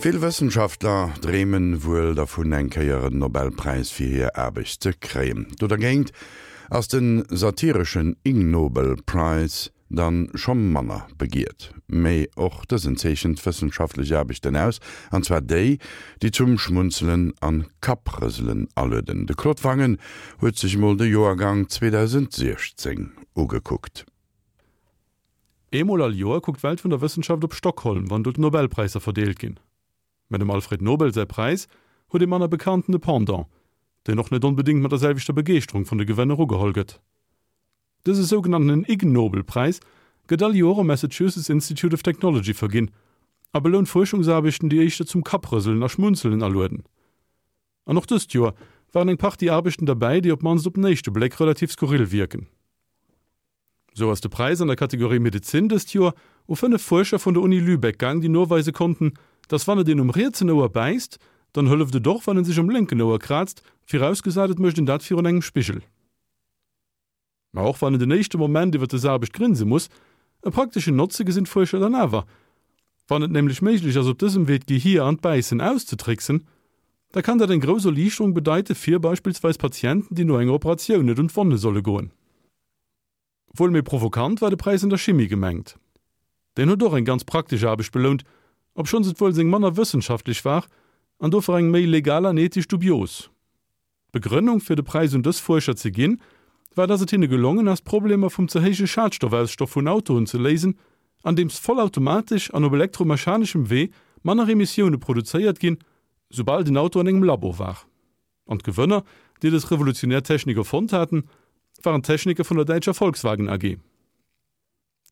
Vill Wëssenschaftler dreemen wuel dervun eng Kéier en Nobelpräis fir hir Aarbecht ze kréien. Do dergéint ass den satireschen Ig Nobel Prize dann scho manner begiert. Mee och dësen zeechent wëssenschaftlech Aarbechten aus, an zwar déi, déi zum Schmunzelen an Kapprëselen alueden. De Claude Wangen huet sech mol de Joergang 2016 ugekuckt. Eemol all Joer kuckt d'Welt vun der Wëssenschaft op Stockholm, wann do d'Nobelpräisser verdeelt ginn. Mä dem Alfred Nobel säi Präis huet ee manner bekannten Pendant, deen och net onbedéngt mat der selwechter Begeeschterung vun de Gewënner ugeholl gëtt. Dëse sougenanntenen Ig-Nobel-Präis gëtt all Joer um Massachusetts Institute of Technology verginn a belount Fuerschungsaarbechten, déi éischter zum Kapprëselen a Schmunzelen alueden. An och dëst Joer waren eng Partie Aarbechten derbäi, déi op d'mannst op den éischte Bléck relativ skurril wierken. Sou ass de Präis an der Kategorie Medezin dëst Joer u 5 Fuerscher vun der Uni Lübeck gaang, déi noweise konnten, dass wann et een um rietsen Ouer bäisst, dann hëlleft et och wann en sech um lénken Ouer kraazt, virausgesat et mécht een dat virun engem Spigel. Ma och wann en den éischte Moment iwwer dës Aarbecht grinse muss, e prakteschen Notze gesinn d'Fuerscher dann awer. Wann et nämlech méiglech ass op dësem Wee d'Gehier an d'Bäissen auszetricksen, da kann dat eng grouss Erliichterung bedeite fir beispillsweis Patienten, déi no enger Operatioun net un d'Wonne solle goen. Wuel méi provokant war de Präis an der Chimie gemengt. Deen huet och eng ganz praktesch Aarbecht belount, obschonns et wuel seng manner wëssenschaftlech war an dofir eng méi legal an ethesch dubios. D'Begrënnung fir de Präis un dës Fuerscher ze ginn, war dass et hinne gelongen ass d'Problemer vum ze héije Schadstoffausstoff vun Autoen ze léisen, andeems vollautomatesch an op elektromechaneschem Wee manner Emissioune produzéiert ginn, soubal den Auto an engem Labo war. An d'Gewënner, déi dës revolutionär Technik erfonnt haten, waren d'Techniker vun der däitscher Volkswagen AG.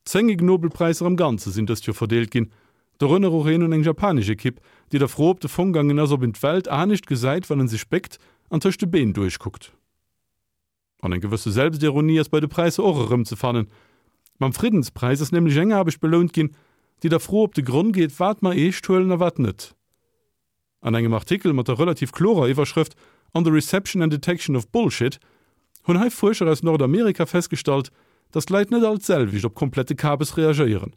10 Ig Nobelpräisser am Ganze sinn dëst Joer verdeelt ginn, dorënner och een un eng japanesch Ekipp, déi der Fro op de Fong gaangen ass, ob een d'Welt anescht gesäit, wann en sech béckt an tëscht de Been duerchkuckt. An eng gewësse Selbstironie ass bei de Präisser och erëmzefannen. Mam Friddenspräis ass nämlech eng Aarbecht belount ginn, déi der Fro op de Gronn geet, wat mer eescht huelen a wat net. An engem Artikel mat der relativ klorer Iwwerschrëft On the reception and detection of bullshit hunn hei Fuerscher aus Nordamerika festgestallt, datt d'Leit net all d'selwecht op komplette Kabes reagéieren.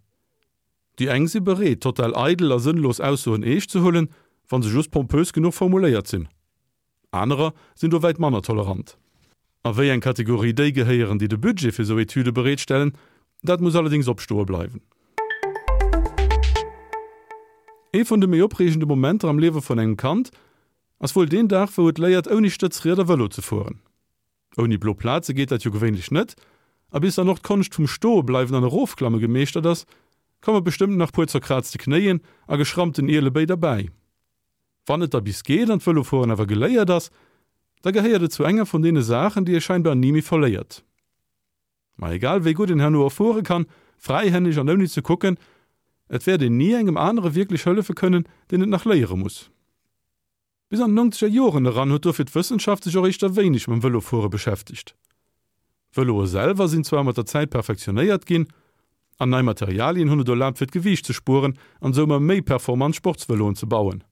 Déi eng si bereet, total eidel a sënnlos Aussoen eescht ze huelen, wa se just pompös genuch formuléiert sinn. Anerer sinn do wäit manner tolerant. A wéi eng Kategorie déi gehéieren, déi de Budget fir esou Etüde bereetstellen, dat muss allerdéngs opstoe bleiwen. Ee vun de méi opreegende Momenter am Liewe vun engem Kand ass wuel deen Dag, wou et léiert, ouni Stëtzrieder Vëlo ze fueren. Ouni blo Plaze geet dat jo gewéinlech net, a bis dann och d'Konscht vum Stoebleiwen an Erofklamme gemeeschtert ass, komme bestëmmt nach puer zerkraazte Knéien a geschrammten Ielebéi derbäi. Wann et da bis geet an d'Vëlofueren awer geléiert ass, da gehéiert et zu enger vun deene Saachen, déi ee scheinbar ni méi verléiert. Ma egal wéi gutt een herno och fuere kann, fräihänneg an ouni ze kucken, et wäert een ni engem anere wierklech hëllefe kënnen, deen et nach léiere muss. Bis an d'nongzeger Joren eran huet dofir d'Wëssenschaft sech och éischter wéineg mam Vëlofuere beschäftegt. D'Vëloe selwer sinn zwar mat der Zäit perfektionéiert ginn, an nei Materialien hunn et erlaabt fir d'Gewiicht ze spueren an sou ëmmer méi performant Sportsvëloen ze bauen.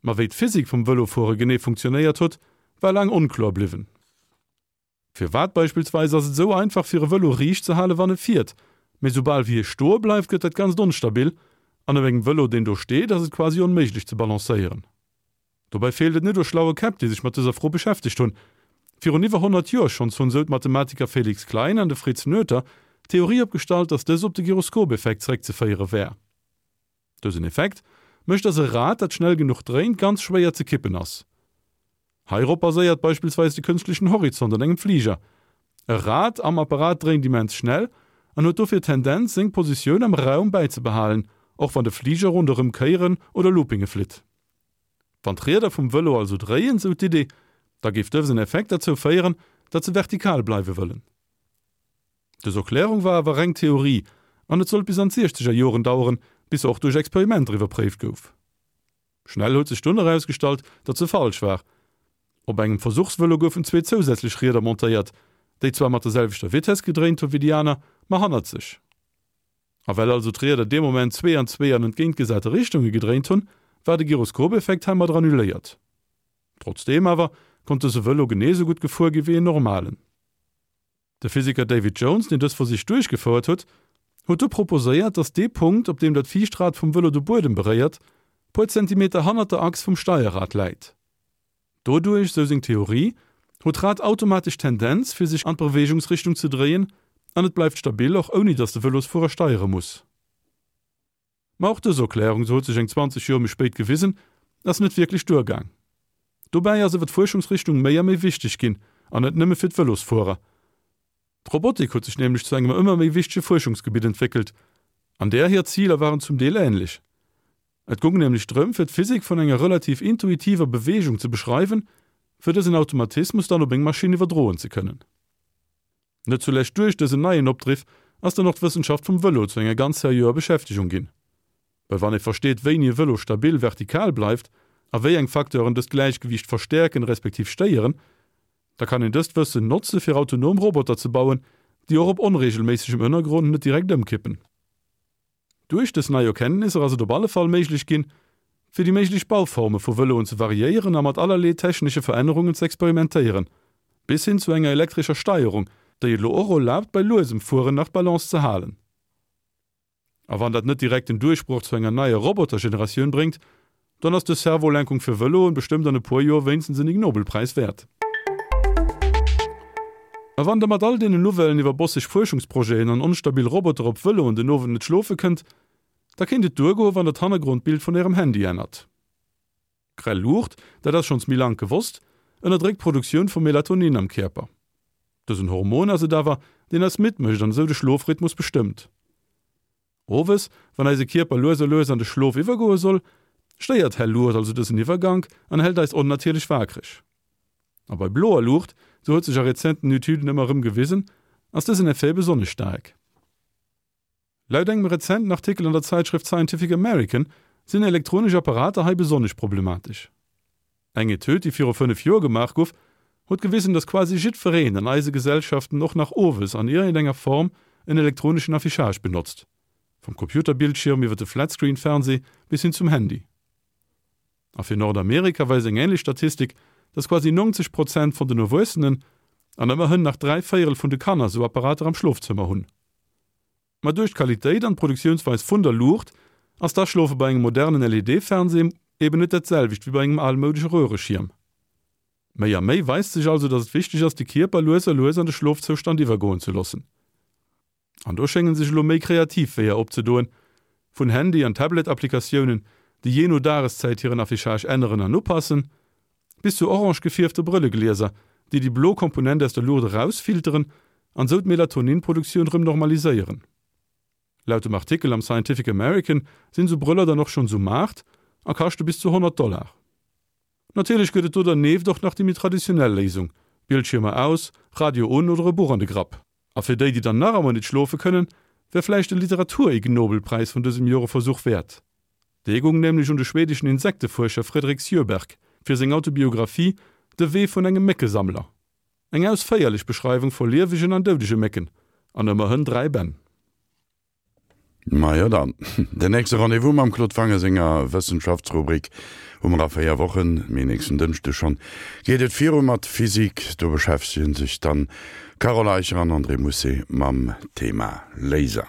Ma wéi d'Physik vum Vëlofuere genee funktionéiert huet, war laang onkloer bliwwen. Firwat beispillsweis ass et esou einfach fir e Vëlo riicht ze hale wann e fiert, mee soubal wéi e stoe bleift gëtt dat Ganzt onstabil an op engem Vëlo deen do steet ass et quasi onméiglech ze balancéieren. Dobäi feelt et net u schlaue Käpp, déi sech mat dëser Fro beschäftegt hunn. Virun iwwer 100 Joer schonns hunn esou d'Mathematiker Felix Klein an de Fritz Noether d'Theorie opgestallt, datt dës op de Gyroskop-Effekt zeréckzeféiere wär. Dësen Effekt mécht, datt e Rad, dat schnell genuch dréint, ganz schwéier ze kippen ass. Heirop baséiert beispillsweis de kënschtlechen Horizont an engem Fliger. E Rad am Apparat dréint immens schnell an huet dofir d'Tendenz, seng Positioun am Raum bäizebehalen, och wann de Fliger ronderëm Kéieren oder Loopinge flitt. Wann d'Rieder vum Vëlo also dréien, sou d'Idee, da géif dësen Effekt derzou féieren, datt se vertikal bleiwe wëllen. Dës Erklärung war awer reng Theorie an et sollt bis an d'siechzeger Joren daueren, bis se och duerch Experimenter iwwerpréift gouf. Schnell huet sech dunn erausgestallt, datt se falsch war. Op engem Versuchsvëlo goufen zwee zousätzlech Rieder montéiert, déi zwar mat der selwechter Vitess gedréint hu wéi déi aner, ma hannerzeg. A well also d'Rieder dee Moment zwee an zwee an entgéintgesate Richtunge gedréint hunn, war de Gyroskop-Effekt heimadder annuléiert. Trotzdeem awer konnt dëse Vëlo genee sou gutt gefuer gi wéi en normalen. De Physiker David Jones, deen dës Versich duerchgefouert huet, huet du proposéiert, datt dee Punkt, op deem dat viischt Rad vum Vëlo de Buedem beréiert, puer Zentimeter hannert der Achs vum Steierrad läit. Doduerch, sou seng Theorie, huet d'Rad automatesch d'Tendenz, fir sech an d'Beweegungsrichtung ze dréien an et bleift stabil, och ouni datt de Vëlosfuerer steiere muss. Ma och dës Erklärung, sou huet sech eng 20 Joer méi spéit gewisen, ass net wierklech duergaang. Dobäi ass awer d'Fuerschungsrichtung méi a méi wichteg ginn, an net nëmme fir d'Vëlosfuerer. D'Robotik huet sech nämlech zu engem ëmmer méi wichtege Fuerschungsgebitt entwéckelt, an där hir Ziler waren zum Deel änlech. Et goung nämlech drëm, fir d'Physik vun enger relativ intuitiver Beweegung ze beschreiwen, fir dësen Automatismus dann op eng Maschinn iwwerdroen ze kënnen. Net zulescht duerch dësen neien Opdriff ass dann och d'Wëssenschaft vum Vëlo zu enger ganz seriöer Beschäftegung ginn. Well wann ee versteet, wéini e Vëlo stabil vertikal bleift a wéi eng Facteuren dëst Gläichgewiicht verstäerken respektiv stéieren, da kann een dëst Wëssen notze fir autonom Roboter ze bauen, déi och op onreegelméissegem Ënnergrond net direkt ëmkippen. Duerch dës nei Erkenntnisser ass et op alle Fall méiglech ginn, fir déi méiglech Bauforme vu Vëloen ze variéieren a mat allerlee technesche Verännerungen ze experimentéieren, bis hin zu enger elektrescher Steierung, déi et elo och erlaabt, bei luesem Fueren nach d'Balance ze halen. A wann dat net direkt den Duerchbroch zu enger neier Robotergeneratioun bréngt, Dann ass dës Servolenkung fir Vëloen bestëmmt an e puer Joer wéinstens en Ig-Nobel-Präis wäert. A wann der mat all deenen Nouvellen iwwer bosseg Fuerschungsprojeten an onstabil Roboter op Vëloen den Owend net schlofe kënnt, da kéint et duergoen, wann der d'Hannergrondbild vun ärem Handy ännert. Grell Luucht, dat ass schonns méi lank gewosst, ënnerdréckt d'Produktioun vu Melatonin am Kierper. Dësen Hormon ass et awer, deen eis midd mécht an esou de Schlofrhythmus bestëmmt. Owes, wann eise Kierper lues a lues an de Schlof iwwergoe soll, stéiert hell Luucht also dësen Iwwergank an hält eis onnatierlech waakreg. A bei bloer Luucht, sou huet sech a rezenten Etüden ëmmer erëm gewisen, ass dësen Effet besonnesch staark. Laut engem rezenten Artikel an der Zäitschrëft Scientific American sinn elektronesch Apparater hei besonnesch problematesch. Eng Etüd, déi viru 5 Joer gemaach guff, huet gewisen, dass quasi jiddwereen an eise Gesellschaften och nach owes an iergendenger Form en elektroneschen Affichage benotzt, vum Computerbildschirm iwwer de Flatscreen-Fernseh bis hin zum Handy. A fir Nordamerika weist eng änlech Statistik, dass quasi 90 Prozent vun den Erwuessenen an ëmmerhënn nach 3 Véierel vun de Kanner sou Apparater am Schlofzëmmer hunn. Ma duerch d'Qualitéit an d'Produktiounsweis vun der Luucht ass d'Aschlofe bei engem modernen LED-Fernseh eben net dat selwecht wéi bei engem almoudesche Röhreschierm. Méi a méi weist sech also, dass et wichteg ass, de Kierper lues a lues an de Schlofzoustand iwwergoen ze loossen. An do schéngen sech elo méi kreativ Weeër opzedoen, vun Handy an Tablet-Applikatiounen, déi jee no Dageszäit hiren Affichage änneren an upassen, bis zu orange gefierfte Brëlleglieser, déi déi blo Komponent aus der Luucht erausfilteren an sou d'Melatonin-Produktioun rëm normaliséieren. Laut dem Artikel am Scientific American sinn sou Brëller dann och schonns um Maart a kaschte bis zu 100 Dollar. Natierlech gëtt et do dernieft och nach déi méi traditionell Léisung, Bildschiermer aus, Radio un oder e Buch an de Grapp. A fir déi, déi dann nach emmer nit schlofe kënnen, wär vläicht de Literatur-Ig-Nobel-Präis vun dësem Joer e Versuch wäert. Dee goung nämlech un de schwedeschen Insektefuerscher Fredrik Sjöberg fir seng Autobiographie De Wee vun engem Méckesammler. Eng ausféierlech Beschreiwung vu liewegen an doudege Mécken, an ëmmerhënn 3 Bänn. Majo dann, den nächste Rendez-vous mam Claude Wange senger Wëssenschaftsrubrik hu mer a 4 Wochen, mee nächsten Dënschde schonn geet et viru mat Physik. Do beschäftegen sech dann Carole Eicher an André Mousset mam Thema Laser.